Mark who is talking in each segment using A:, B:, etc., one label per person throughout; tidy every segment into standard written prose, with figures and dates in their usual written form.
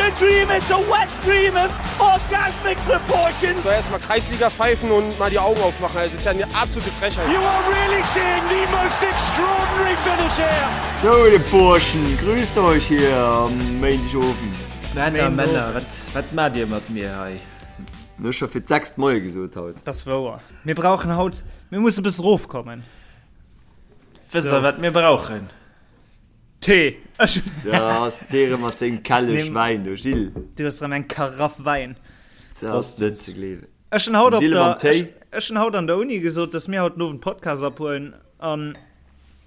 A: a dream, it's a wet dream of orgasmic proportions.
B: So erstmal Kreisliga pfeifen und mal die Augen aufmachen. Das ist ja eine absolute Frechheit.
A: You are really seeing the most extraordinary finish here.
C: So, de Burschen, grüßt euch hier am Méindegowend.
D: Männer, Männer, wat, wat maacht Dir mat mir hei?
C: Ech scho fir d'sechst Moie gesot haut.
E: Das ass wouer. Mir brauchen haut, mir musse bëssen rofkommen.
D: Wësst der, wat mir brauchen?
E: Tee! Ech.
C: Da ass dee rëm mat sengem Kellech Wäin do, Gilles.
E: Du hues rëm eng Karaff Wäin.
C: Dat ass net ze gleewen.
E: Ech hunn haut op
C: Dille
E: der,
C: mam Téi.
E: ech, ech hunn haut an der Uni gesot, dass mir haut den Owend Podcast ophuelen an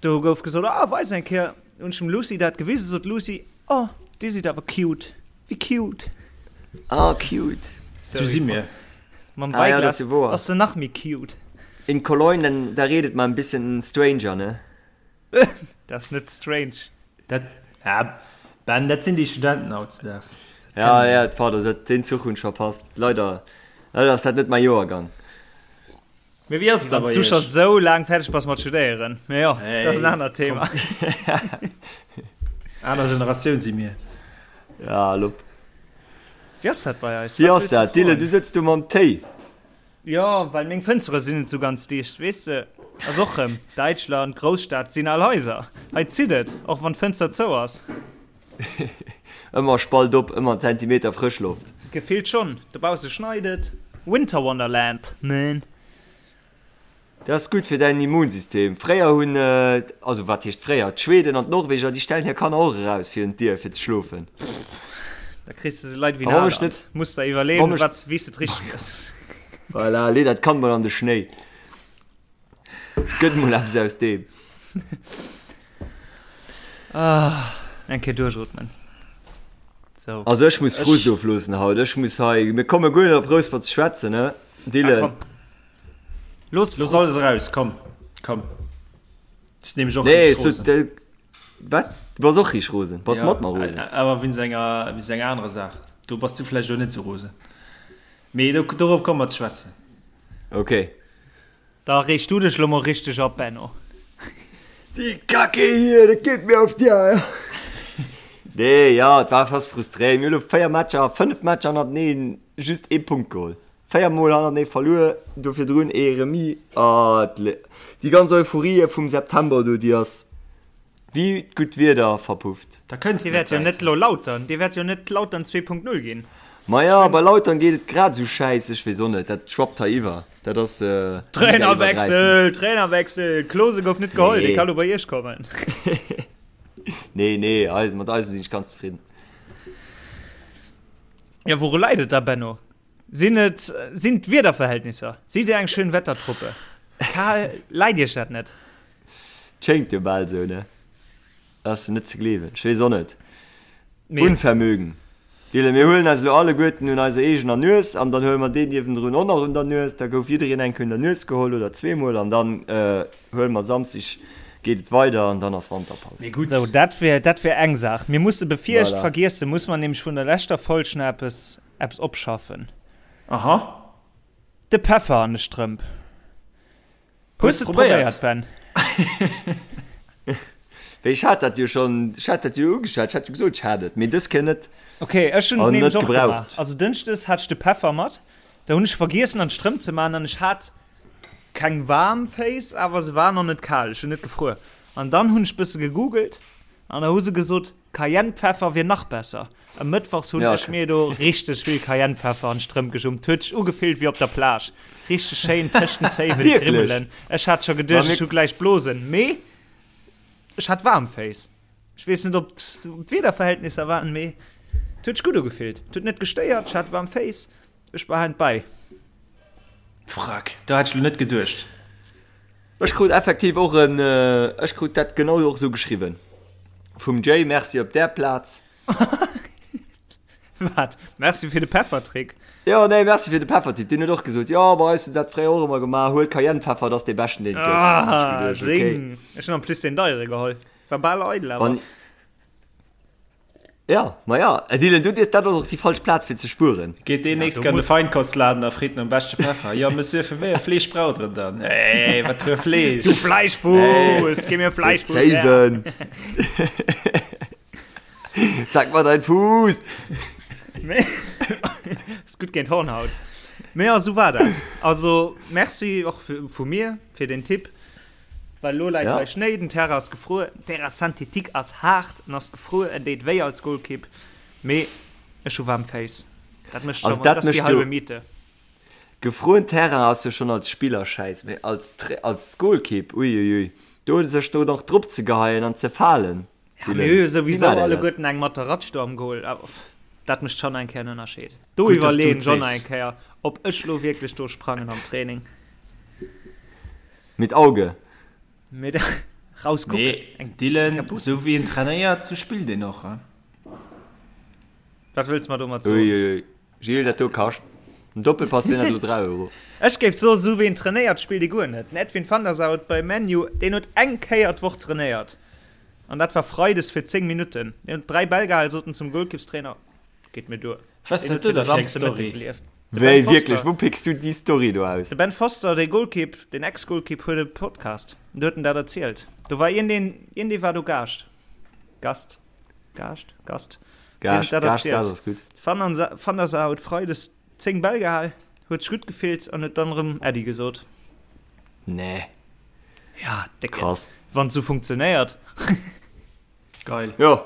E: do gouf gesot, ah, weis eng Kéier. Hunn ech dem Lucy dat gewisen, sot d'Lucy, oh, dir sidd awer cute. Wéi cute.
C: Ah, cute.
D: Sou si mir.
E: Mam
C: Ah, ja, dat
E: Weiglas
C: ass jo woer.
E: ass se nach méi cute.
C: In Cologne, dann, da redet man ein bisschen stranger, ne?
E: Dat ass net strange.
D: Dat, ah, Ben, dat sinn déi Studenten hautdesdaags. Dat
C: Ja,
D: kennen
C: ja,
D: mir.
C: pardon, dat, deen Zuch hunn ech verpasst. Leider, leider ass dat net mäi Joergang.
D: Mee wéi ass et da
E: Wann
D: bei
E: du scho
D: iech?
E: sou laang fäerdeg bass mat studéieren. Mee jo, dat ass en
D: Hey,
E: anert
D: komm.
E: Thema.
D: Aner Generatioun si mir.
C: Ja, lopp.
E: Wéi ass dat bei eis?
C: Wéi
E: Wat
C: ass
E: wëlls du
C: dat, Dylan?
E: froen?
C: Du sëtz do mam Téi.
E: Jo, well meng Fënstere sinn net sou ganz dicht, weess de. Ass och rëm Däitschland, Grousstad, sinn al Haiser. Hei zitt et, och wann d'Fënster zou ass.
C: Ëmmer Spalt op, ëmmer en Zentimeter Frëschloft.
E: Gefillt schonn, dobausse schneit et. Winter Wonderland, man.
C: Dat ass gutt fir däin Immunsystem. Fréier hunn, also wat heescht fréier, d'Schweden an d'Norweger, déi stellen hir Kanner och eraus virun d'Dier fir ze schlofen.
E: Da kriss de se Leit wéi
C: A
E: en
C: wa mech
E: Haaland.
C: net,
E: Muss der
C: wa
E: iwwerleeën,
C: mech,
E: wat, wéi s de et richteg méchs.
C: voilà, lee dat Kand mol an de Schnéi. Gëtt mol eppes aus deem.
E: Ah, eng Kéier duerchootmen. So.
C: Also ech muss Frust
D: Ech,
C: ofloossen haut. Ech muss hei, mir komme guer net op Rouspert ze schwätzen, ne
E: Ah,
C: Dylan?
E: komm. Looss
D: Looss alles eraus, komm, komm. Ech sinn nämlech och
C: Nee,
D: richteg
C: ech sot,
D: rosen.
C: äh, wat? Du bass och richteg rosen? Bass
D: Ja,
C: mat mer rosen?
D: awer wéinst enger, wéinst enger anerer Saach. Do bass du vläicht elo net sou rosen. Mee do, dorop komme mer ze schwätzen.
C: Okay.
E: Da reeg du dech lo mol richteg op, Benno.
C: Die Kacke hier, dat geet mir auf die Eier. Nee, ja, et war fast frustréierend. Mir hu lo 4 Matcher, 5 Matcher hannerteneen just ee Punkt geholl. 4 mol hannertenee verluer, do virdrun ee Remis. Ah, déi ganz Euphorie vum September do, déi ass wéi d'gutt Wieder verpufft.
D: Da kënns
E: Dir
D: de net
E: wäert jo
D: wäit.
E: net lo Lautern, Dir wäert jo net Lautern 2.0 ginn.
C: Maja, bei Lautern geet et grad esou schäiss, ech weess och net, dat schwappt hei iwwer, dat ass ligaiwwergräifend.
E: Trainerwechsel, Trainerwechsel, Klose gouf net geholl, dee
C: Nee.
E: ka lo bei iech kommen.
C: Nee, nee, mat eisem sinn ech ganz zefridden.
E: Jo, wouru läit et da, Benno? Sinn et sinn d'Wiederverhältnisser? Sidd Dir eng Schönwettertruppe? Kal läit Iech dat net?
C: Schéngt jo bal esou, ne? Ass net ze gleewen. Ech weess och net.
E: Mee.
C: Unvermögen. Dylan, mir huelen eis elo alleguerten un eiser eegener Nues an dann huele mer deen niewendrun och nach un der Nues. Da gouf jiddereen eng Kéier un der Nues geholl oder zweemol an dann huele mer Samsdeg geet et weider an dann ass Wanterpaus.
D: Mee gutt.
E: Sou, dat wär dat wär eng Saach. Mir musse bevir ech
C: Voilà.
E: vergiessen, muss mer nämlech vun der leschter Folg nach eppes Eppes opschaffen.
D: Aha.
E: De Peffer an de Strëmp. Hues de et probéiert, Ben?
C: Wéi, ech hat dat jo schonn, ech hat dat jo ugeschwat, ech hat jo gesot, ech hat et, mee dës Kéier net.
E: Ok, ech hunn et nämlech och gemaach. Also dënschdes hat ech de Peffer mat, da hunn ech vergiessen an d'Strëmp ze maachen an ech hat keng waarm Féiss, awer se waren och net kal, ech hunn net gefruer. An dann hunn ech bësse gegoogelt an da hu se gesot, Cayennepfeffer wier nach besser. E Mëttwochs hunn ech mir do richteg vill Cayennepfeffer an d'Strëmp gejummt. Huet sech ugefillt wéi op der Plage. Richteg schéin tëscht den Zéiwen d'Grimmelen. Ech hat scho geduecht, ech hu gläich Blosen, mee ech hat waarm Féiss. Ech weess net, ob d'Wiederverhältnisser waren, mee et huet sech gutt ugefillt. Et huet net gestéiert, ech hat waarm Féiss. Ech behalen et bäi.
D: Frack, do hat ech lo net geduecht.
C: Ech krut effektiv och en, ech krut dat genau och esou geschriwwen vum Jay, merci op där Plaz.
E: Wat? Merci fir de Peffertrick?
C: Jo, nee, merci fir de Peffertipp. Deen huet och gesot, jo, bei eis hu se dat fréier och ëmmer gemaach, huel Cayennepfeffer, dat ass dee beschten, deen et gëtt.
E: Ah,
C: Ech geduecht, okay.
E: seng. Ech hunn en plus deen deiere geholl. War bal eidel awer.
C: Wann. Ja, ma ja, Dylan, du, dat ass och déi falsch Plaz fir ze spueren.
D: Geet deen nächst an de Feinkostladen a freet nom beschte Peffer. Jo, Monsieur, fir wéi e Fleesch braucht Der en dann? Ey, wat fir e Fleesch?
E: Du Fleischfuss, gi mir Fleischfuss her!
C: Zéiwen! Zeig mal dein Fuß!
E: Mee ass gutt géint Hornhaut. Mee jo, esou war dat. Also Merci och vu mir fir den Tipp. Well elo läit hei Schnéi, den Terrain ass gefruer, den Terrain synthétique ass haart en ass gefruer, en deet wéi als Golkipp. Mee ech hu waarm Féiss. Dat mécht scho, dat ass déi halbe Miete.
C: Gefrueren Terrain ass jo schon als Spiller schäiss, mee als als Golkipp, uiuiui, do sech do nach drop ze geheien an ze falen.
E: Ja, mir hu jo souwisou alleguerten eng mat der Ratsch do am Goal, awer dat mécht schon eng Kéier en Ënnerscheed. Do iwwerleeën ech och nach eng Kéier, ob ech lo wierklech do sprangen am Training.
C: Mit Auge.
E: Mit rauskucken.
D: Nee, Dylan, sou wéi en trainéiert, sou spillt een och.
E: Wat wëlls mer domat soen?
C: Uiuiui. Gilles, dat do kascht en Doppelpass wier dat elo 3 Euro.
E: Ech géif soen, esou wéi en trainéiert, spillt e guer net. Den Edwin van der Sar huet bei ManU, deen huet eng Kéier d'Woch trainéiert an dat war freides fir 10 Minutten. Deen huet 3 Bäll gehal, sot en zum Golkippstrainer, geet mir duer.
D: Was
E: Deen
D: dat
E: huet
D: do
E: fir de
D: da fir eng
E: Samsde Mëtteg
D: Story?
E: gelieft. De Ben
C: Wéi,
E: Foster.
C: wierklech, wou picks du déi Story do aus?
E: De Ben Foster, dee Golkipp, deen Ex-Golkipp, huet e Podcast, do huet en dat erzielt. Do war iergendeen, iergendee war do Gaascht, Gast, Gaascht, Gast.
C: Gaascht, Gaascht, Gaascht ass gutt.
E: Van der Sar huet Freides 10 Bäll gehal, huet sech gutt gefillt an huet dann erëm Äddi gesot.
C: Nee.
E: Ja, décke.
C: Krass.
E: Wann et sou funktionéiert.
D: Geil.
C: Jo,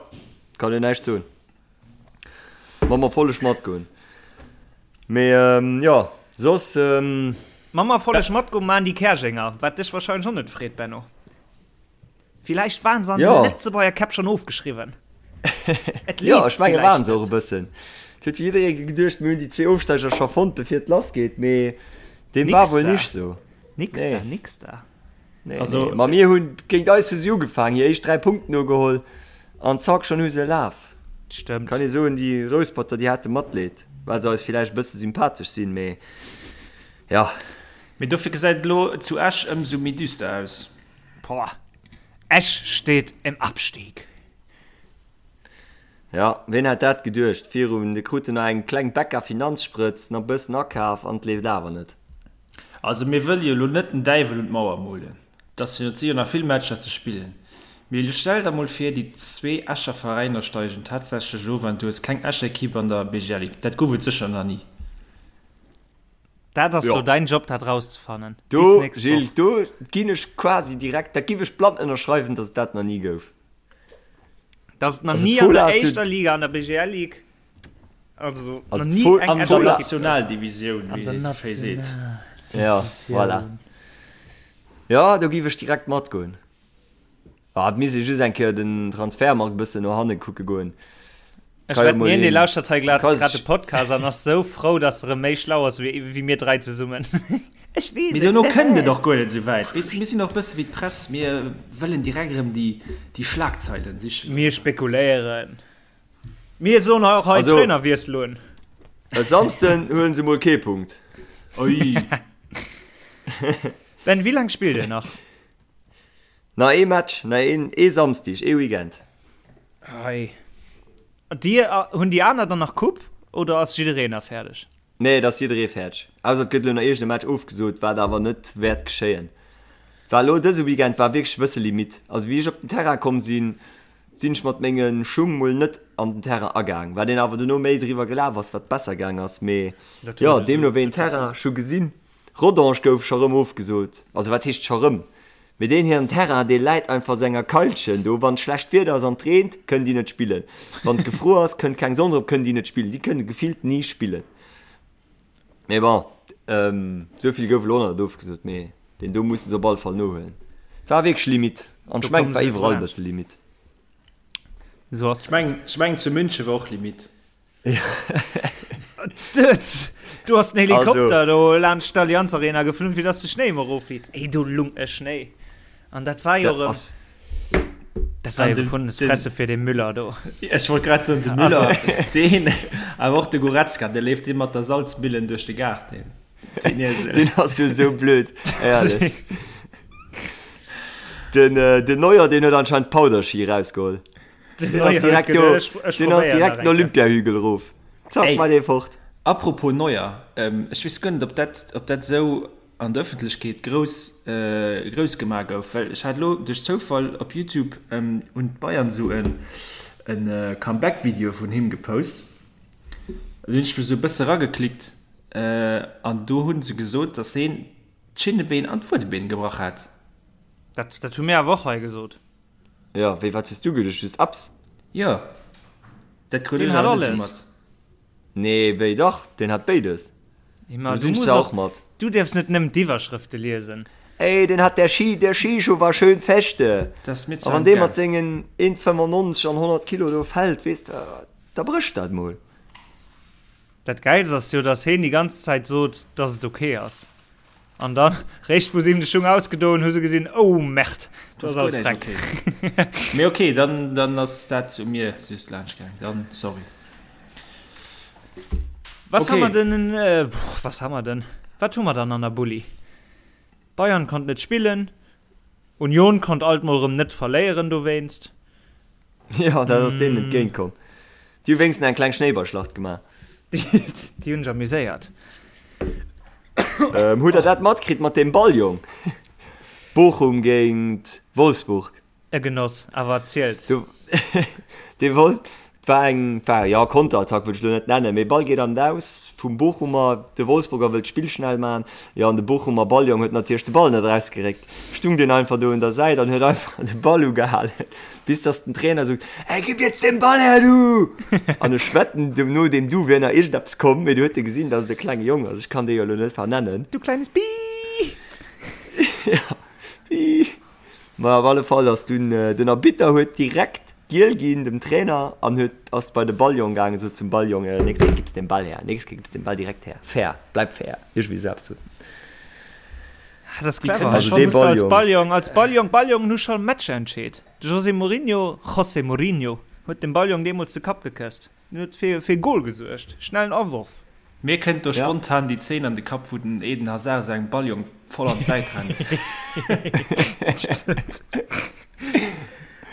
C: kann een näischt soen. Mam Erfolleg matgoen. Mee jo, soss.
E: Mam Erfolleg matgoen maan déi Käerjenger, wat dech wahrscheinlech och net freet, Benno. Villäicht waren se an
C: Ja.
E: de Lëtzebuerger Käpp schon ofgeschriwwen. Et
C: Ja,
E: leeft
C: ech menge
E: villäicht
C: waren se och e
E: net.
C: bëssen. Et huet jo jidderee geduecht, mir hunn déi zwee Ofsteiger scho fonnt, bevir et lass geet, mee deem war
E: Nix
C: wuel
E: da.
C: nicht sou.
E: Nix
C: Nee.
E: da, nix da.
C: Nee,
D: Also-
C: nee. Ma mir hunn géint eis hu si ugefaangen, hir éischt 3 Punkten nogeholl an zack, schonn hu se e Laf.
E: Stëmmt.
C: Kann ee soen, déi Rousperter, déi hate Matleed, well se eis villäicht e bësse sympathesch sinn, mee ja.
D: Mee dofir gesäit et elo zu Esch ëmsou méi düster aus.
E: Boah, Esch steet im Abstieg.
C: Ja, ween hätt dat geduecht virun, de kruten nach eng kleng Becca Finanzsprëtz, nach bëssen akaf an et leeft awer net.
D: Also mir wëlle jo elo net den Däiwel un d'Mauer molen, et ass jo, et si jo nach vill Matcher ze spillen, mee elo stell der mol vir, déi zwee Escher Veräiner steigen tatsächlech of an du hues keng Escher Equipe an der BGL Ligue. Dat gouf et sécher nach ni.
E: Dat ass
C: Jo.
E: lo däin Job dat rauszefannen. Bis
C: Do,
E: nächst
C: Gilles,
E: Woch.
C: do ginn ech quasi direkt, dat giff ech blann ënnerschreiwen, dass et dat nach ni gouf.
E: Dass et nach
C: Also
E: ni an
C: d'Fola
E: der
C: ass jo,
E: éischter Liga, an der BGL Ligue, also
C: also
E: nach ni
C: d'Fo,
E: eng
D: An der
E: Escher
C: d'Fola,
E: Ekipp.
D: Nationaldivisioun,
E: An
D: wéi
E: der
D: ee sou schéi seet.
C: ja, voilà.
E: Nationaldivisioun.
C: Jo, do giff ech direkt matgoen. Ah, et misst ee just eng Kéier den Transfermarkt e bëssen no hanne kucke goen.
E: Ech
C: Ka jo
E: wetten,
C: mol
E: hien, dee
C: een,
E: lauschtert hei grad
C: ka
E: grad de
C: sech.
E: Podcast an ass sou frou, dass er erëm méi schlau ass wéi, wéi mir 3 zesummen. Ech weess
D: Mee
E: et.
D: dono kënnt et och guer net esou wäit. Weess de, mir sinn och e bësse wéi d'Press, mir wëllen direkt erëm déi, déi Schlagzeilen sichen.
E: Mir spekuléieren. Mir soen och hei
C: Also,
E: Trainerwiessel un.
C: e Samsden huelen se mol kee Punkt.
D: Ui.
E: Ben, wéi laang spillt dir nach?
C: Nach ee Match, nach een, ee Samsdig, ee Weekend.
E: Ei. Dir, hunn déi aner dann nach Coupe oder ass jiddereen da fäerdeg?
C: Nee, et ass jidderee fäerdeg. Ausser et gëtt elo nach iergend e Match ofgesot, wat awer net wäert geschéien. War elo dëse Weekend war wierklech e bësse Limite. Also wéi ech op den Terrain komm sinn, sinn ech mat menge Schung mol net an den Terrain agaang. Wat een awer dono méi driwwer gelaf ass, wat besser gaang ass. Mee jo, deemno wéi een Terrain ech hu gesinn, Rodange gouf scho rëm ofgesot. Also wat heescht scho rëm? Mee deen hiren Terrain, dee läit einfach sou enger Keilchen do. Wann schlecht Wieder ass an et reent, kënnen déi net spillen. Wann et gefruer ass, kënnt keng Sonn drop, kënnen déi net spillen. Déi kënne gefillt ni spillen. Mee bon, esou vill gouf elo och nach net ofgesot, mee deen do musse se op alle Fall nohuelen. War wierklech Limite. An ech mengen, et war iwwerall e bësse Limite.
E: Esou ass
D: Ech mengen, ech mengen zu München war och Limite.
E: Du hast den Helikopter also, do laanscht d'Allianz Arena geflunn, fir dass de Schnéi emol erofleet. Ey, do lung e Schnéi. An dat war jo erëm. Dat war jo gefundenes Fresse fir de Müller do.
D: Ech wollt grad soen, de Müller, also. deen, awer och de Goretzka, dee leeft dee mat der Salzmillen duerch de Gaart, deen.
C: Deen, deen ass jo sou blöd. Ehrlech. Den, äh, den Neuer, deen huet anscheinend Powderschi rausgeholl. Den ass direkt do, den ass direkt den Olympiahügel erof. Zack, mat ee fort.
D: Apropos Neuer, ech weess guer net, ob dat, ob dat esou an der Ëffentlechkeet grouss, grouss gemaach gouf, well ech hat elo duerch Zoufall op Youtube hunn d'Bayern esou en, en Comeback-Video vun him gepost. Do hunn ech mech esou e bësse rageklickt an do hu se gesot, datt heen d'Schinnebeen an d'Fuedebeen gebrach hat.
E: Dat, dat hu mir awer och hei gesot.
C: Jo, wéi, wat hues du geduecht? Just Apps?
D: Jo, dat krut ech awer net esou mat.
C: Nee, wéi dach, deen hat béides.
E: Ma du muss och mat. Du dierfs net nëmmen d'Iwwerschrëfte liesen.
C: Ey, den hat der Ski, der Skischuh war schön feste. A wann dee mat sengen 1,95 an 100 Kilo do fält, weess de, da brécht dat mol.
E: Dat Gäilst ass jo, dass heen déi ganz Zäit sot, dass et ok ass. An dann, réischt wou se him de Schung ausgedoen hu se gesinn, oh Merde, do ass alles freck.
D: Mee ok, dann, dann ass dat u mir just laanscht gaang, dann sorry.
E: Was okay. ha mer denn, äh, was ha mer denn? Wat hu mer dann an der Bulli? Bayern konnt net spillen, Union konnt alt mol rëm net verléieren dowéinst.
C: Jo, dat ass deenen entgéint komm. Déi hu wéinstens eng kleng Schnéiballschlacht gemaach.
E: Déi hunn sech amuséiert.
C: Ähm, hutt der dat matkritt mat deem Balljong? Bochum géint Wolfsburg.
E: E Genoss, awer erzielt.
C: Du, dee wollt, 't war eng, 't war, jo, Konterattack wëll ech elo net nennen, mee Ball geet an d'Aus vum Bochumer, de Wolfsburger wëll d'Spill schnell man, jo, an de Bochumer Balljong huet natierlech de Ball net erausgeréckt, stung deen einfach do un der Säit an huet einfach de Ball ugehalen, bis dass den Trainer sot, Ey, gib jetzt den Ball her, du! An ech wetten, no deem Du wier nach iergendeppes komm, mee du huet e gesinn, dass et e klenge Jong ass, ech kann dee jo elo net vernennen.
E: Du kleines Bii!
C: Ja, Bii! Ma op alle Fall ass dunn den Arbitter huet direkt giel ginn dem Trainer an huet ass bei de Balljong gaangen, sot zum Balljong, nächst Kéier gibs den Ball her, nächst Kéier gibs den Ball direkt her, fair, bleib fair, iergendwéi esou eppes sot en.
E: Ah, dat ass clever. Also dee Balljong. Als Balljong, als Balljong, Balljongen hu scho Matcher entscheet. De José Mourinho, José Mourinho, huet dem Balljong deemools de Kapp gekësst. En huet fir e Gol gesuergt. Schnellen Aworf.
D: Mir kënnt do spontan déi Zeen an de Kapp wou den Eden Hazard sengem Balljong voll an d'Säit rennt.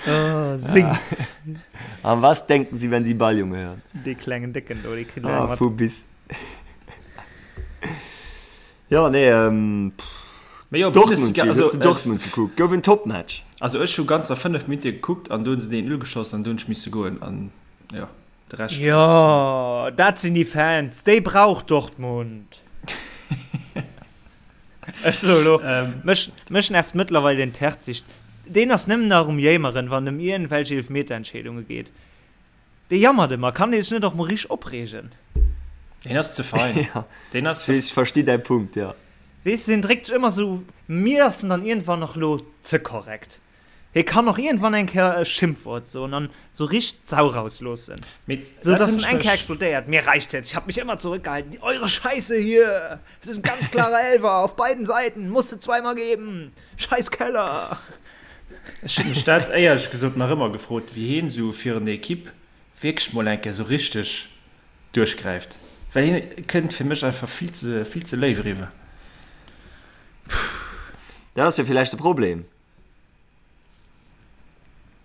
E: Oh, sing.
C: An was denken Sie wenn Sie Balljunge hören?
E: Dee klengen Décken do, dee
C: kritt elo eng mat. Vu bis. Jo, nee,
D: Mee jo,
C: Dortmund, Bundesliga, also, hues de Dortmund gekuckt? Gouf en Topmatch.
D: Also ech hu ganzer 5 Minutte gekuckt an do hunn se den 1-0 geschoss an do hunn ech misse goen an jo, de
E: Rescht ass. Jo, dat sinn déi Fans, déi brauch Dortmund. Ech soe lo, mech, mech nervt mëttlerweil den Terzic. Deen ass nëmmen nach um Jéimeren, wann et ëm iergendwelch Eelefmeterentscheedunge geet. Dee jammert ëmmer, kann dee sech net och mol richteg opreegen?
D: Deen ass ze fein.
C: Ja, deen ass ze. Ech versti däi Punkt, jo.
E: Weess de, deen dréckt sech ëmmer sou, mir ass en dann iergendwann och lo ze korrekt. Hie kann och iergendwann eng Kéier e Schimpfwort soen an sou richteg d'Sau rausloossen.
D: Mee
E: Sou dass en eng Kéier explodéiert, Mir reicht's jetzt, ich hab mich immer zurückgehalten, eure Scheiße hier, es ist ein ganz klarer Elfer, auf beiden Seiten, musste zweimal geben, scheiß Keller.
D: Ech hunn mech dat éierlech gesot nach ëmmer gefrot, wéi hien esou fir en Equipe wierklech mol eng Kéier esou richteg duerchgräift, well hien kënnt fir mech einfach vill ze, vill ze léif eriwwer.
C: Dat ass jo villäicht de Problem.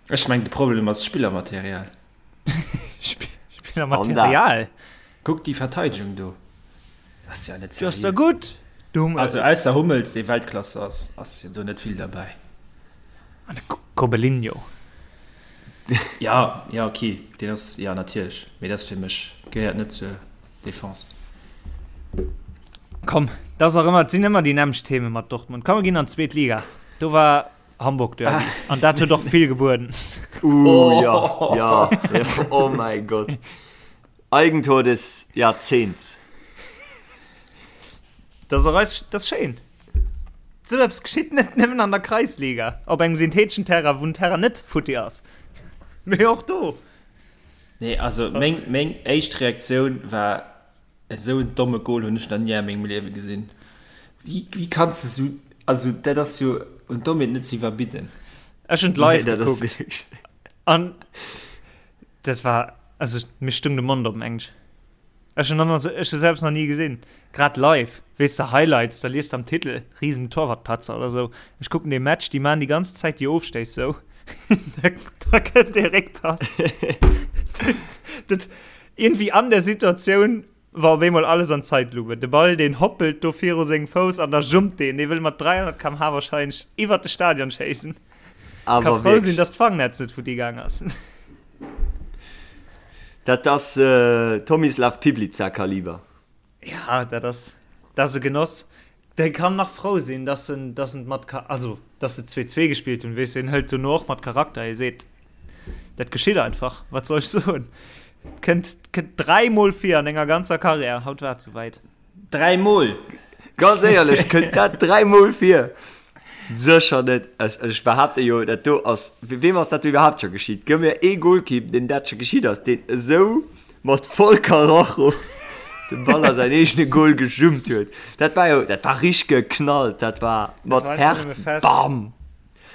D: Ech mengen de Problem ass Spillermaterial.
E: Spillermaterial?
D: Kuck déi Verteidegung do. Ass ja net
E: seriö. Ass der gutt.
D: Also ausser Hummels dee Weltklasse ass, ass jo do net vill derbäi.
E: An de Kobelinho.
D: Ja, ja okay, deen ass, ja natierlech, mee dat ass fir mech gehéiert net zur Defense.
E: Komm, dat ass och ëmmer, et sinn ëmmer déi nämmlecht Themen mat Dortmund. Komm, mir ginn an d'zweet Liga. Do war Hamburg Derby ah. an dat huet och vill gebueden.
C: Uh, ja, ja, ja, oh mein Gott. Eigentor des Jahrzehnts.
E: Das ass, das ass schéin. Sou eppes geschitt net nëmmen an der Kreisliga, op engem syntheteschen Terrain, wou den Terrain net futti ass, mee och do.
D: Nee, also meng, meng éischt Reaktioun war, esou en domme Goal hunn ech nach ni a mengem Liewe gesinn. Wéi, wéi kanns de sou, also dat ass jo un Dommheet net ze iwwerbidden.
E: Ech hunn et live nee, gekuckt. An dat war, also mir stung de Mond op, mengen ech. Ech hunn dann, ech hu selbst nach ni gesinn. Grad live, weess de, Highlights, da liest de am Titel, Riesen Torwartpatzer oder sou. Ech kucken dee Match, déi maan déi ganz Zäit déi Ofstéiss sou. Da kënnt dee Réckpass. Dat, iergendwéi an der Situatioun war op eemol alles an Zeitlupe. De Ball, deen hoppelt do viru sengem Fouss an da jumpt deen. Dee wëll mat 300 km/h wahrscheinlech iwwert de Stadion schéissen. Ka
C: Awer
E: frou sinn,
C: wierklech.
E: dass d'Fangnetz net futti gaang ass.
C: Dat ass Tomislav Piplica Kaliber.
E: Ja, dat ass, dat ass e Genoss. Dee kann nach frou sinn, dass en, dass en mat, also dass se 2, 2 gespillt hunn, weess de, en hëlt dono och mat Charakter, hie seet, dat geschitt einfach, wat soll ech soen, kënnt, kënnt dräimol vir an enger ganzer Karriär, haut war et souwäit.
D: Dräimol!
C: Ganz éierlech, kënnt dat dräimol vir? Sécher net. Ech, ech behaapte jo, dat do ass, weem ass dat do iwwerhaapt scho geschitt? Gëff mir ee Golkipp, deem dat scho geschitt ass, deen esou mat voll Karacho de Ball a säin eegene Gol gejummt huet. Dat war jo, dat war richteg geknallt, dat war mat Häerz, bam!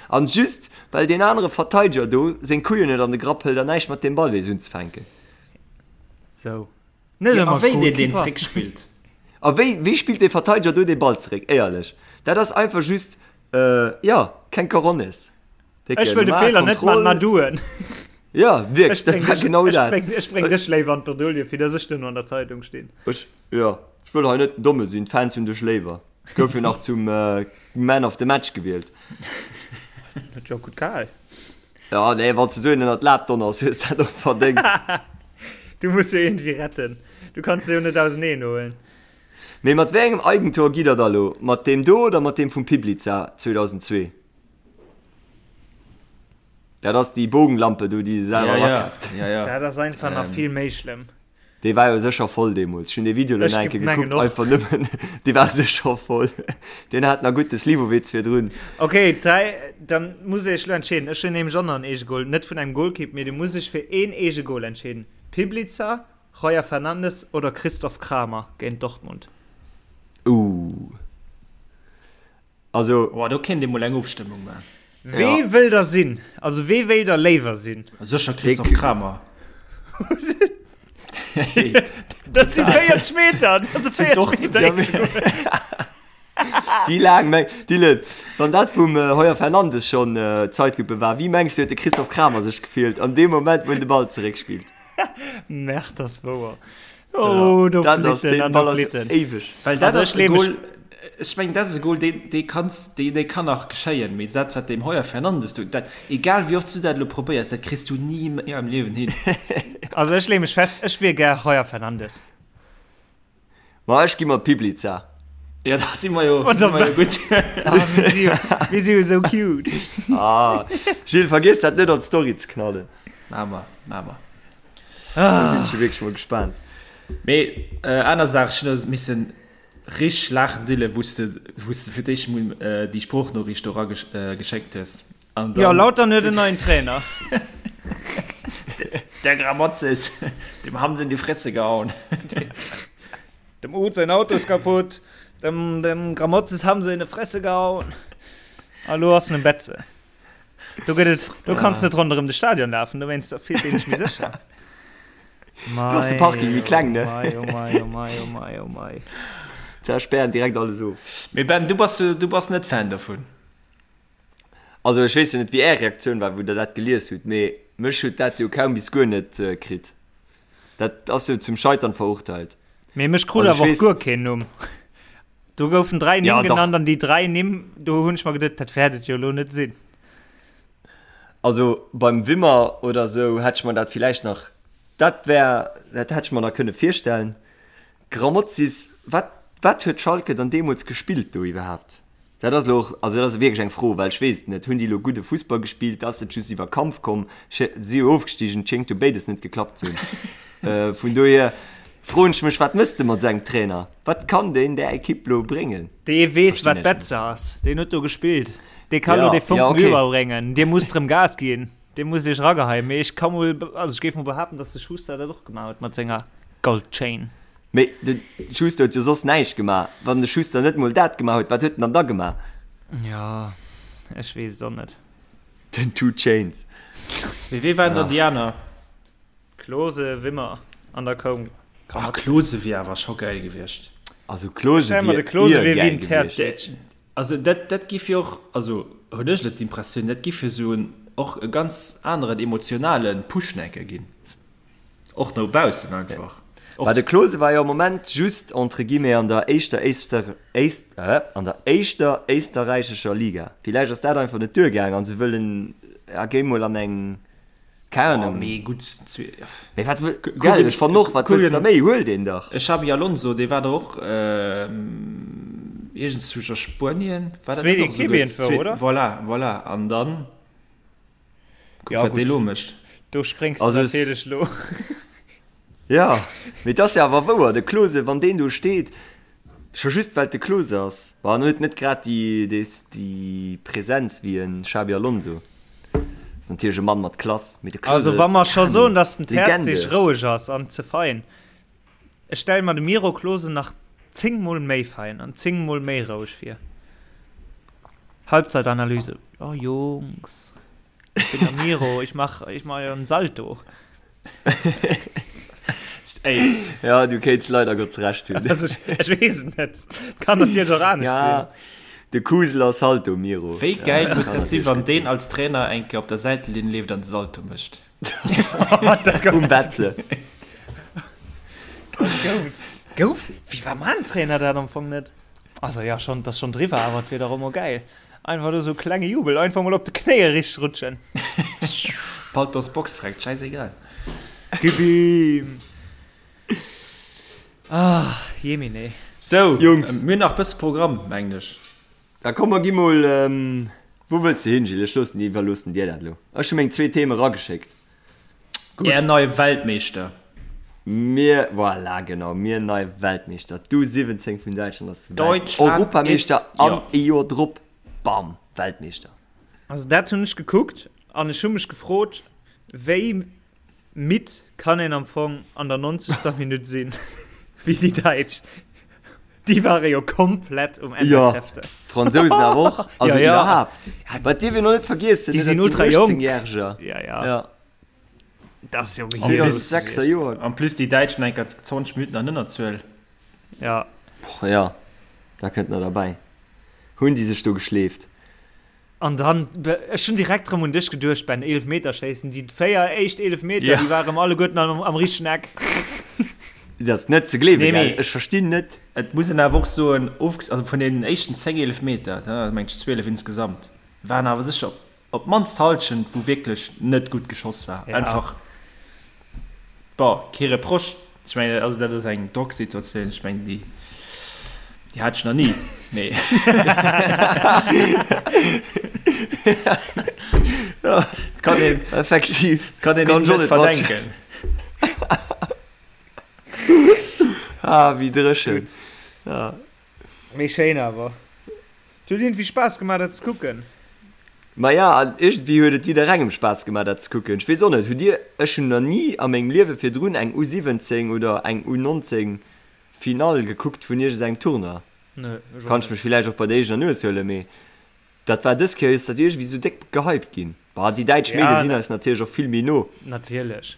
C: An just well deen anere Verteideger do seng Couillen net an de Grapp hëlt an näischt mat deem Ball weess unzefänken.
E: Sou.
D: Net ëmmer a wéi deen deen zréck spillt.
C: A wéi, wéi spillt dee Verteideger do dee Ball zeréck? Éierlech, dat ass einfach just, jo, keng Coronnes.
E: Ech wëll de Feeler net man, ma du en.
C: Ja, wierklech, dat war genau
E: dat. Ech bréng dech léiwer an d'Bredouille, fir dass ech duerno an der Zeitung stinn.
C: Ech, jo, ech wëll hei net den Domme sinn, d'Fans hunn dech léiwer. Gouf jo nach zum Man of the Match gewielt.
E: Huet jo och gutt gehal.
C: Ja, nee, wann s de esou een ënnert d'Lab donners, hues de dat och verdéngt.
E: Du muss jo iergendwéi retten. Du kanns se jo net auseneen huelen.
C: Mee mat wéi engem Eigentor gitt der da lo? Mat deem do oder mat deem vum Piblica 2002? Dat ass déi Bogenlampe do, déi se selwer
D: erakappt.
E: Ja, ja. Dat ass einfach nach vill méi schlëmm.
C: Dee war jo sécher voll deemools. Ech hunn dee Video lo nach eng Kéier gekuckt, einfach nëmmen, dee war sécher voll. Deen hat nach gutt de Slivovitz virdrun.
E: Ok, dräi, dann muss ech elo entscheeden. Ech hunn nämlech och nach en Eegegol, net vun engem Golkipp, mee du muss dech fir een Eegegol entscheeden. Piblica, Roger Fernandes oder Christoph Kramer géint Dortmund?
C: Ooh.
D: Also. Oh, do kéint ee mol eng Ofstëmmung maachen.
E: Wee wëll der sinn? Also wee wéilt der léiwer sinn?
D: Sécher Christophe Kramer.
E: Dat si 40 Meter! Dat ass e 40 Meter Eegegol.
C: Wéi laang meng, Dylan, wann dat vum Heuer Fernandes schonn Zeitlupe war, wéi mengs du huet de Christophe Kramer sech gefillt an deem Moment, wou en de Ball zeréckspillt?
E: Merde, ass wouer. Oh, do
C: dat ass,
E: flitten
C: deen
E: an do
C: Ball ass
E: flitten.
C: éiweg.
D: Well dat
E: Also
D: ass
E: ech
D: e
E: leeë mech.
D: Goal, ech mengen dat ass e Goal, deen, dee kanns, dee, dee kann nach geschéien, mee dat wat deem Heuer Fernandes do, dat, egal wéi oft s du dat elo probéiers, dat kriss du ni méi am Liewen hin.
E: Also ech leeë mech fest, ech wier gär Heuer Fernandes.
C: Ma ech gi mat Piblica.
D: Ja, da si mer jo, si mer jo gutt.
E: Ah, mir si jo, mir si jo esou cute.
C: Ah, Gilles, vergiess dat net an d'Story ze knallen.
D: Maache mer, maache mer.
C: Da sinn ech jo wierklech mol gespaant.
D: Mee aner Saach, ech hunn missen richteg laachen, Dylan, wou s de, wou s de fir d'éischt mol déi Sproochnoriicht do erageschéckt hues.
E: An dann. Jo, Lautern huet en neien Trainer.
D: Der Gramotzes, dem haben se in die Fresse gehauen.
E: Dem Uth säin Auto ist kaputt, dem, dem Gramotzes haben se in die Fresse gehauen. A lo ass en um Betze. Do gëtt et, do kanns net ronderëm de Stadion lafen, dowéinst fillt een sech méi sécher.
C: Do ass de Parking méi kleng, ne?
E: Mei, oh mei, oh mei, oh mei, oh mei.
C: Ze spären direkt alles of.
D: Mee Ben, du bass, du bass net Fan dovun?
C: Also ech weess jo net wéi är Reaktioun war wou der dat gelies hutt, mee mech huet dat jo kaum bis guer net kritt. Dat ass jo zum Scheitern verurteilt.
E: Mee mech krut
C: Also ech
E: awer och
C: weess.
E: guer keen Numm. Do goufen 3 Nimm
C: Ja, dach.
E: genannt an déi 3 Nimm, do hunn ech mer geduet, dat wäert et jo elo net sinn.
C: Also beim Wimmer oder sou hätt ech mer dat villäicht nach, dat wär, dat hätt ech mer nach kënne virstellen. Grammozis, wat, wat huet Schalke dann deemools gespillt do iwwerhaapt? Dat ass elo och, also dat ass wierklech eng Fro, well ech weess et net. Hunn déi elo gudde Fussball gespillt? Ass et just iwwer Kampf komm? Si jo ofgestigen, et schéngt jo béides net geklappt ze hunn. Vun dohier froen ech mech, wat mëss de mat esou engem Trainer? Wat kann deen där Ekipp elo bréngen?
E: Dee weess,
C: Verstinn
E: wat
C: ech net.
E: Betze ass. Deen huet do gespillt. Dee ka elo
C: Ja,
E: dee
C: ja,
E: Fonken
C: okay.
E: iwwerbréngen. Dir musst erëm Gas ginn. Dir musst iech erageheien. Mee ech ka mol, also ech géif mol behaapten, datt de Schuster dat och gemaach huet mat senger Goldchain.
C: Mee de Schuster huet jo soss näischt gemaach. Wann de Schuster net mol dat gemaach huet, wat huet en dann da gemaach?
E: Jo, ech weess et och net.
C: Den Two Chainz.
D: Mee wee waren dann déi aner?
E: Klose, Wimmer an da koum
D: Ah, Klose wier awer scho gäil gewiescht.
C: Also Klose
E: Stell mer de
C: wier
E: Klose wier wéi
C: gäil
E: en
C: gewiescht.
E: Terzic.
D: Also dat, dat giff jo och, also hunn ech elo d'Impressioun, dat giff jo esou en och e ganz aneren emotionale Push nach eng Kéier ginn. Och no baussen einfach.
C: Bah, de Klose war jo am Moment just entre guillemets an der éischter éister éist an der éischter éisterräichescher Liga. Villäicht ass dat einfach net duergaang an se wëllen ja géi mol an eng. Keng Ahnung.
D: Oh, mee gutt.
C: Mee wat wëll, gell, ech fannen och, wat wëlls de méi? Huel deen dach.
D: E Xabi Alonso, dee war der och iergendzwousch a Spuenien. War dat
E: Zweet
D: net och
E: Equipe
D: esouguer?
E: iergendwou,
D: Zweet,
E: oder?
D: voilà, voilà. An dann kuck,
E: Ja,
D: wat dee
E: gutt.
D: lo mécht.
E: Do spréngs de
C: Also
E: natierlech lo.
C: Ja, mee et ass jo awer wouer, de Klose, wann deen do steet, scho just well et de Klose ass, bon, en huet net grad déi, déi, déi Präsenz wéi e Xabi Alonso, ass natierlech e Mann mat Klass, mee de Klose,
E: Also wa mer scho
C: keng
E: soen, datt den
C: Legende.
E: Terzic roueg ass an ze fein, ech stelle mer de Miro Klose nach 10 mol méi fein an 10 mol méi roueg vir. Halbzeitanalyse, Oh Jungs, ich bin der Miro, ich mach, ich mach jo en Salto.
D: Ey.
C: Ja, du kéints leider Gottes Recht hunn.
E: Also ech, ech weess et net. Kann natierlech och anescht
C: Ja,
E: sinn.
C: de Kusel ass Salto, Miro.
D: Wéi
C: Ja,
D: gäil muss
C: kann
D: dat sinn,
C: natierlech
D: wann
C: gutt
D: deen
C: sinn.
D: als Trainer eng Kéier op der Säitelinn leeft an de Salto mécht?
E: Dat gouf.
C: Um Betze.
E: Gouf. Gouf. Wéi war man Trainer dat am Fong net? Also ja, schon, dat ass schon driwwer, awer et wier dach och mol gäil. Einfach do sou klenge Jubel, einfach mol op de Knéie richteg rutschen.
D: Paltos Box freckt, scheißegal.
E: Gib ihm! Ah, jemine.
D: Sou,
C: Jungs.
D: Mir hunn nach bësse Programm, mengen ech.
C: Da komm mer gi mol, wou wëlls de hin, Gilles? Ech loossen, iwwerloossen dir dat elo. Ech hu meng zwee Theme erageschéckt.
D: Gutt. Är nei Weltmeeschter.
C: Mir, voilà, genau, mir nei Weltmeeschter. D'U 17 vun Däitschland ass
D: Deutschland
C: Europameeschter
D: ist,
C: an
D: ja.
C: e Joer drop, bam, Weltmeeschter.
E: Also dat hunn ech gekuckt an ech hu mech gefrot, wéi midd kann een am Fong an der 90. Minutt sinn, wéi déi Däitsch. Déi ware jo komplett um Enn
C: Jo,
E: der Kräfte.
C: Fransousen awer och, also
E: Ja, ja.
C: iwwerhaapt. Wat dierf een och net vergiessen,
E: Déi
C: ne,
E: sinn
C: dat
E: ultra
C: sinn
E: jonk.
C: 18-Järger.
E: Ja, ja.
C: Ja.
E: Dat ass jo
D: En
E: gehier.
D: plus,
C: 2006er Joer.
D: en plus déi Däitschen enker 20 Minutten an Ënnerzuel.
E: Ja.
C: Boah, ja, da kënnt nach derbäi. Hunn déi sech do geschleeft.
E: An dann, ech hunn direkt rëm un dech geduecht, Ben, Eelefmeterschéissen, déi 4 éischt Eelefmeter,
D: Ja.
E: déi ware rëm alleguerten am, am richtegen Eck.
C: Dat ass net ze gleewen,
D: Nee,
C: gell?
D: mee
C: Ech verstinn net.
D: Et muss een awer och soen, ofges-, also vun deenen éischten 10 Eelefmeter, da mengt ech 12 insgesamt, waren awer sécher op d'mannst d'Hallschent, wou wierklech net gutt geschoss war.
E: Ja.
D: Einfach, bon, kee Reproche. Ech mengen, also dat ass eng Drocksituatioun, ech mengen, déi, déi hat ech nach ni, mee.
C: Ja,
D: Et kann een,
C: effektiv.
D: et kann een
C: Kann
D: hinnen
C: ech och
D: net
C: net
D: verdenken.
C: Ah, wéi dréchen. Ja.
E: Mee schéin awer. Et huet iergendwéi Spaass gemaach dat ze kucken.
C: Maja, an iergendwéi huet et jidderengem Spaass gemaach dat ze kucken. Ech weess och net, hutt dir, ech hunn nach ni a mengem Liewe virdrun eng U17 oder eng U19 Finall gekuckt vun iergendengem Tournoi.
E: Nee, ech och
C: Kann ech
E: net.
C: mech villäicht och bei der eegener Nues huelen, mee dat war dës Kéier, ass dat iergendwéi sou déck gehypt ginn. Bah, déi däitsch
E: Ja,
C: Medie sinn eis natierlech och vill méi no.
E: Natierlech.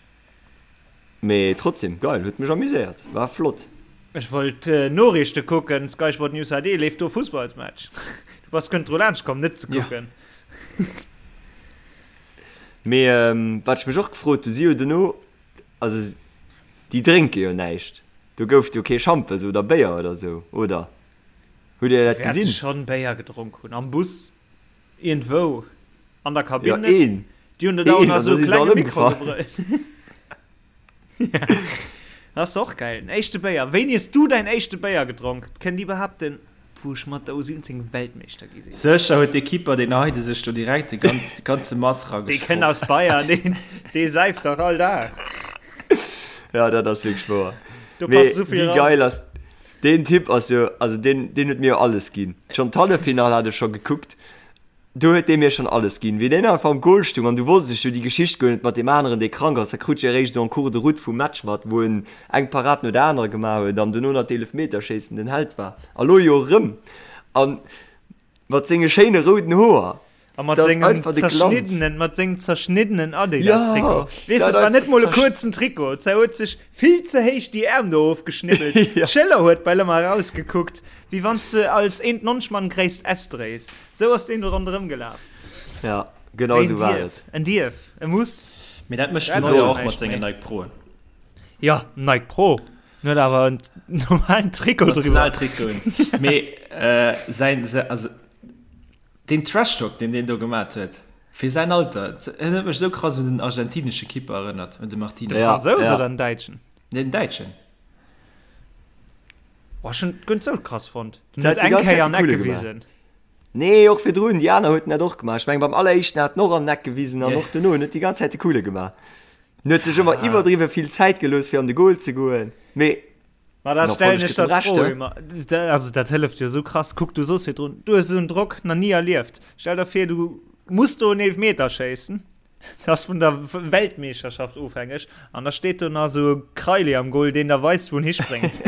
C: Mee trotzdem, geil, huet mech amuséiert, war flott.
E: Ech wollt Noriichte kucken, Sky Sport News HD, leeft do Fussballsmatch? Du bass guer net dru laanscht komm net ze kucken.
C: Mee wat ech mech och gefrot hu, si jo dono, also déi drénke jo näischt, do gouf et jo kee Schampes oder Béier oder sou, oder? Hutt Dir dat
E: Déi wäerte
C: gesinn?
E: schonn Béier gedronk hunn, am Bus, iergendwou, an der Kabinn
C: Ja,
E: net.
C: een,
E: Déi hunn dat auch
C: een,
E: nach
C: an
E: sou
C: da si se
E: klenge
C: all
E: Mikro
C: ëmgefall.
E: gebrëllt. Ja, dat ass och geil. Den éischte Béier. Wéini hues du däin éischte Béier gedronk? Kënnt Dir behaapten, wou ech mat der U17 Weltmeeschter gi sinn?
D: Sécher huet de Keeper, deen Heide sech do direkt de ganz, de ganze Mass
E: Dee kënnt
D: ragesprotzt.
E: aus Bayern, deen, dee säift dach all Dag.
C: Ja, dat ass wierklech wouer.
E: Do
C: Mee
E: passt esou vill
C: wéi
E: ran.
C: geil ass deen Typ ass jo, also deen, deen huet mir jo alles ginn. Schonn d'Halleffinall hat ech scho gekuckt. Do huet dee mir schonn alles ginn. Wéi deen einfach am Goal stung an du wosst ech jo déi Geschicht guer net mat deem aneren, dee krank ass. Da krut ech eréischt esou en cours de route vum Match mat, wou en eng Parad no der anerer gemaach huet an dono nach d'Eelefmeterschéissen den Held war. A lo jo erëm. A mat senge schéine rouden Hoer.
E: A mat
C: Dat ass
E: sengem
C: einfach de Glanz.
E: zerschniddenen, mat sengem zerschniddenen Adidas-Trikot.
C: Jo,
E: Weess de,
C: dat
E: et war net
C: einfach
E: mol e
C: zersch.
E: kuerzen Trikot. Ze huet sech vill ze héich déi Äerm do ofgeschnibbelt.
C: Jo.
E: D'Schëller huet bal ëmmer erausgekuckt, wéi wann s de als 1,90 Mann gréisst S dréis. Sou ass deen do ronderëm gelaf.
C: Ja, genau
E: Mee en
C: esou war
E: dierf,
C: et.
E: en dierf, e muss.
D: Mee dat mécht
E: Dat
D: den
E: ass
D: Neuer
E: schon
D: och mat
E: näischt
D: sengen
E: méi.
D: Nike Proen.
E: Ja, Nike Pro. En huet awer en normalen Trikot driwwer.
D: Nationaltrikoten. Mee äh, säin, also deen Trash-Talk, deen deen do gemat huet. Fir säin Alter. En huet mech esou krass un den argentinesche Kipper erënnert, un de Martinez.
E: De Fransous oder den Däitschen?
D: Nee, den Däitschen.
E: Oh, ech hunn guer net sou krass fonnt. Den huet eng Kéier an Eck gewisen.
C: Nee, och virdrun, déi aner huet en dat och gemaach. Ech mengen, beim alleréischten hat en och an den Eck gewisen an och dono. En huet déi ganz Zäit de Coole gemaach. En huet sech ëmmer iwwerdriwwe vill Zäit gelooss, fir an de Goal ze goen. Mee
E: Ma da stellen ech der d'Fro ëmmer, also dat hëlleft jo esou krass. Kuck, du soos virdrun, du hues esou en Drock nach ni erlieft. Stell der vir, du muss do en Eelefmeter schéissen, dat ass vun der Weltmeeschterschaft ofhängeg, an da steet do nach esou e Kraili am Goal, deen der weist, wou en hispréngt.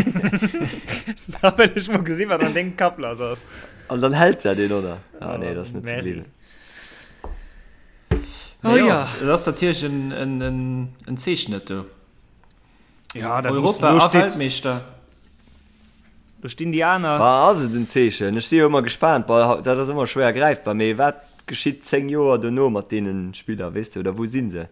E: Da wëll ech mol gesinn, wat an dengem Kapp lass ass.
C: An dann hält dat een, oder? Ah nee, dat ass net ze gleewen.
D: Oh jo. Dat ass natierlech en Zeechen, dat do.
E: Ja, dat
D: Europa
E: muss,
D: a Weltmeeschter.
E: Do stinn déi aner.
C: Bah, ass et en Zeechen? Ech si jo ëmmer gespaant. Bah, dat ass ëmmer schwéier gräifbar, mee wat geschitt 10 Joer dono mat deene Spiller, weess de, oder wou si se?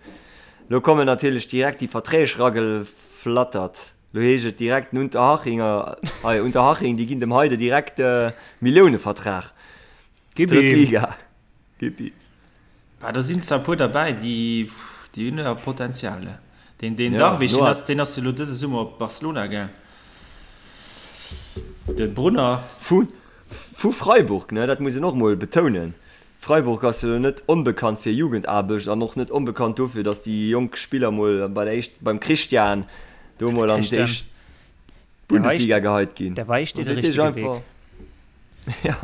C: Lo kommen natierlech direkt déi Verträg rageflattert. Lo heescht et direkt den Unterhachinger, hei Unterhaching, déi ginn dem Heide direkt Milliounevertrag.
E: Gib ihm.
C: Drëtt Liga. Gib ihm.
D: Bah, do sinn zwar e puer derbäi, déi, déi hunn awer Potenzial. Deen, deen ja, Darwich, deen ass, deen ass jo lo dëse Summer op Barcelona gaang. De Brunner.
C: Vu, vu Freiburg, ne, dat muss een och mol betounen. Freiburg ass jo net onbekannt fir Jugendaarbecht an och net onbekannt dofir, datt déi jonk Spiller mol bei der éischt, beim Christian do mol an déi éischt Bundesliga geheit ginn.
E: Der weist dir de richtege Weg.
C: Ja,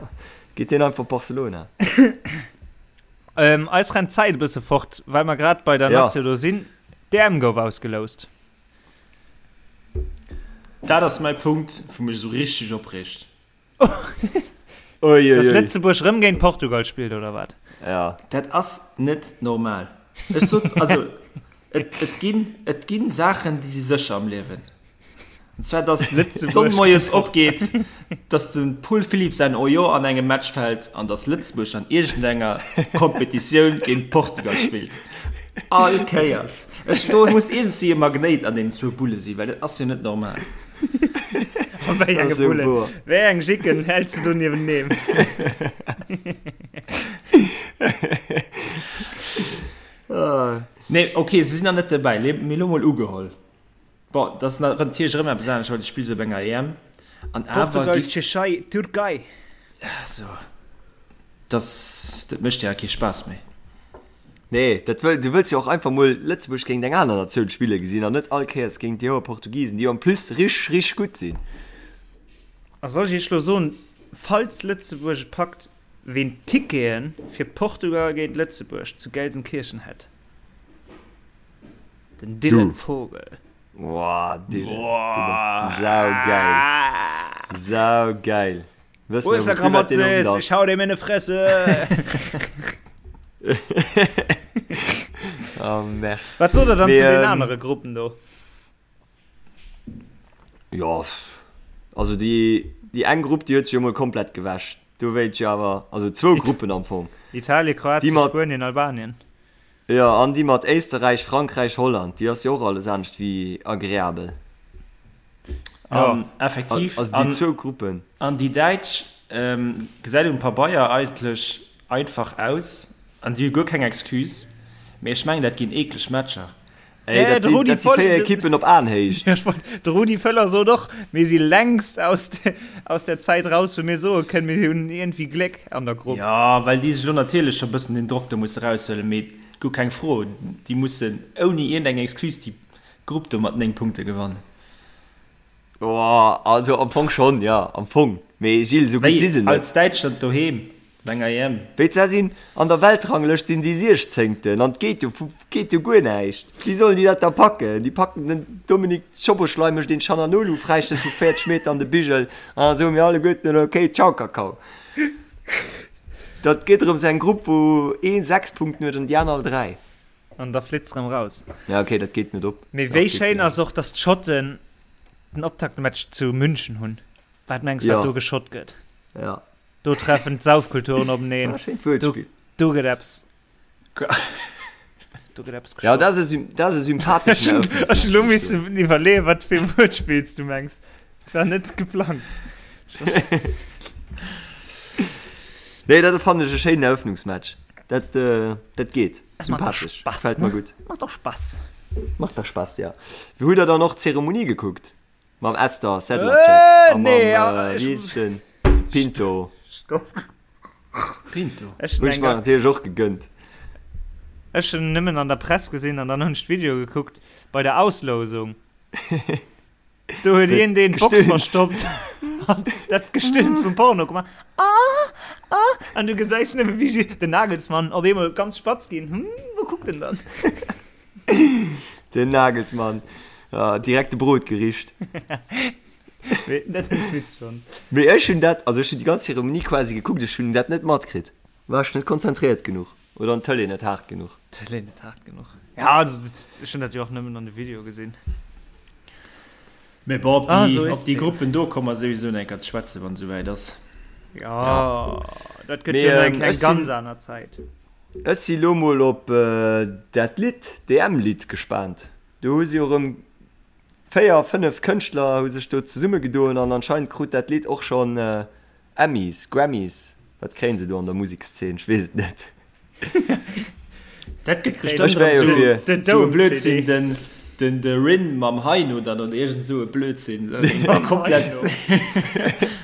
C: geet deen einfach Barcelona.
E: Ähm, eis rennt d'Zäit e bësse fort, well mer grad bei der ja. Nazio do sinn. D'EM gouf ausgeloust.
D: Dat ass mäi Punkt, wou mech esou richteg opreegt.
E: Dass Lëtzebuerg rëm géint Portugal spillt, oder wat?
C: Ja.
D: Dat ass net normal. Ech sot, also, et, et ginn, et ginn Saachen, déi si sécher am Liewen. An zwar, dass d'Sonn moies opgeet, dass de Paul Philipp säin Ojo an engem Match fält an dass Lëtzebuerg an iergendenger Kompetitioun géint Portugal spillt. All Kéiers. Ech, do muss iergendwéi e Magnéit an deenen zwou Bulle sinn, well dat ass jo net normal.
E: A wéi enge Bullen? Wéi eng Jicken häls de do nieweneen?
D: Nee, okay, se sinn nach net derbäi, mee lo mol ugeholl. Bon, dat ass natierlech erëm eppes anescht, well du spills op enger EM.
E: An awer Portugal, Tschechei, Türkei.
D: Also, das, dat mécht jo kee Spaass méi.
C: Nee, dat wëll, du wëlls jo och einfach mol Lëtzebuerg géint eng aner Natioun spille gesinn an net all Kéiers géint déi hoer Portugisen, déi en plus rich, rich gutt sinn.
E: A soll ech iech lo soen, falls Lëtzebuerg et packt, ween d'Tickete fir Portugal géint Lëtzebuerg zu Gelsenkirchen hätt? Den Dylan Vogel.
C: Boah, Dylan, du bass saugeil. Saugeil.
E: Wëss Wo ist der Gramozis? Ich hau dem in die Fresse.
C: Oh, merde.
E: Wat sot der dann zu den anere Gruppen do?
C: Jo, also déi, déi eng Grupp, déi huet sech jo mol komplett gewäsch. Do wéilt ech awer, also zwou Gruppen am Fong.
E: Italien, Kroatien, Spuenien, Albanien.
C: Jo, an déi mat Éisterräich, Frankräich, Holland, déi ass jo och alles anescht wéi agreabel.
D: An effektiv.
C: Also déi zwou Gruppen.
D: An déi Däitsch gesäit um Pabeier eigentlech einfach aus an déi hu guer keng Excuse, mee ech mengen dat ginn eekleg Matcher.
C: Ey, dat sinn, dat si 4 Ekippen op Aenhéicht.
E: De Rudi Völler sot och, mir si längst aus de, aus der Zäit raus, wou mir soe kënnen, mir hunn iergendwéi Gléck an der Grupp.
D: Jo, well déi sech elo natierlech scho bëssen den Drock do musse raushuelen, mee guer keng Fro, déi mussen ouni iergendeng Excuse déi Grupp do mat 9 Punkte gewannen.
C: Boah, also am Fong schonn, jo, am Fong. Mee Gilles, esou gutt si se net.
D: Als Däitschland doheem Op enger EM.
C: Wéi se sinn an der Weltranglëscht sinn déi Siechzéngten an et geet jo geet jo guer näischt. Wéi sollen déi dat da packen? Déi packen den Dominik Szoboszlai mécht een Chananolu Fräistéiss vu 40 Meter an de Bigel an da soe mir alleguerten ok ciao Kakao. Dat geet erëms eng Grupp wou een 6 Punkten huet an déi aner all 3.
E: An da flitt se erëm raus.
C: Ja ok dat geet net op.
E: Mee wéi schéin ass och, datt d'Schotten den Optaktmatch zu München hunn. Wat mengs wat do geschott gëtt?
C: Ja.
E: Do treffen d'Saufkulturen openeen.
C: Ah, schéint Wuertspill.
E: Do, do gëtt eppes. Do gëtt eppes
C: Ja, dat ass e, dat ass e sympatheschen
E: Ech hunn elo missen iwwerleeën, wat fir e Wuertspill s du mengs. Dat war net geplangt.
C: Nee, dat fannen ech e schéinen Eröffnungsmatch. Dat, dat geet. Sympathesch.
E: Gefält mer gutt. Macht doch Spaß.
C: Macht doch Spaß, ja. Wéi hutt der dann och d'Zeremonie gekuckt? Mam Esther Sedlacek a mam, wéi heescht den? Pinto.
E: Stopp.
D: Pinto.
C: Hunn ech mer natierlech och gegënnt.
E: Ech hunn nëmmen an der Press gesinn an dann hunn ech d'Video gekuckt bei der Auslousung. Do huet een deen d'Box verstoppt an dat Gestöhns vum Porno gemaach. Ah, ah, an du gesäis nëmme wéi den Nagelsmann op eemol ganz spatz ginn. Hm, wou kuckt en dann?
C: Den Nagelsmann, ja, direkt de Brot gericht.
E: Mee dat hunn ech witzeg fonnt.
C: Mee ech hunn dat, also ech hunn déi ganz Zeremonie quasi gekuckt, ech hunn dat net matkritt. War ech net konzentréiert genuch oder an d'Tëlee net haart genuch?
E: D'Tëlee net haart genuch. Ja, also ech hunn dat jo och nëmmen an de Video gesinn.
D: Mee bon, op déi, op déi Gruppen do komme mer souwisou nach eng Kéier ze schwätzen, wann et esouwäit ass.
E: Jo, dat gëtt jo nach eng Kéier eng ganz aner Zäit.
C: Ech si lo mol op dat Lidd, d'EM-Lidd gespaant. Do hu si jo erëm 4, 5 Kënschtler hu sech do zesummegedoen an anscheinend krut dat Lidd och schonn Emmys, Grammys, wat kréien se do an der Musekszeen, ech weess et net.
D: Dat gëtt bestëmmt erëm esou e Blödsinn, den, den, de Rin mam Heino dann oder iergend esou e Blödsinn. Komplett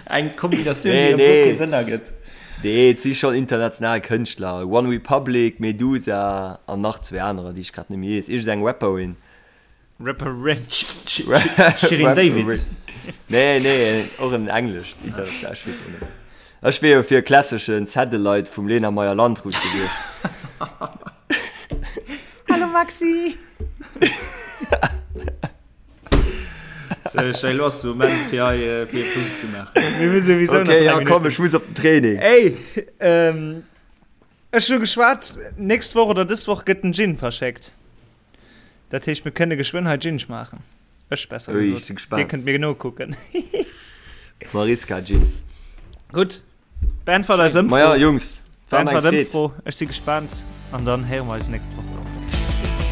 D: eng Kombinatioun, déi erëm guer kee Sënn ergëtt.
C: Nee, et si schonn international Kënschtler, One Republic, Meduza an nach zwee anerer, déi ech grad net méi weess, iergend eng Rapperin.
E: Rapperin.
D: Shirin David.
C: Nee, nee, och en englescht international, ech weess och net. Ech wier jo fir e klasseschen Satellite vum Lena Meyer-Landrut gewiescht.
E: Hallo Maxi!
D: So, ech elo ass de Moment fir hei äh, fir e Punkt ze maachen.
E: Mir hu souwisou
C: nach Okay, ja komm, ech muss op den Training.
E: Ey, ähm, ech hu geschwat, nächst Woch oder dës Woch gëtt den Gin verschéckt. Dat heescht, mir kënne geschwënn hei Gin schmaachen. Ech besser
C: Ui, ech si
E: gesot. Dir
C: gespaant.
E: kënnt mir nokucken.
C: Mariska Gin.
E: Gutt, beäntwert eis Ëmfro.
C: Maja, Jungs, war mir eng
E: Beäntwert
C: Freed.
E: Ëmfro. Ech si gespaant an dann héiere mer eis nächst Woch dann.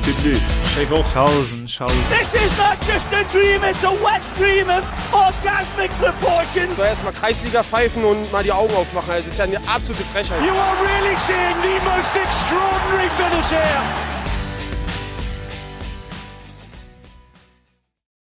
C: Tüdelü.
D: Schéi Woch.
E: Tschausen, tschausen.
A: This is not just a dream, it's a wet dream of orgasmic proportions.
B: So erstmal Kreisliga pfeifen und mal die Augen aufmachen. Das ist ja eine absolute Frechheit.
A: You are really seeing the most extraordinary finish here.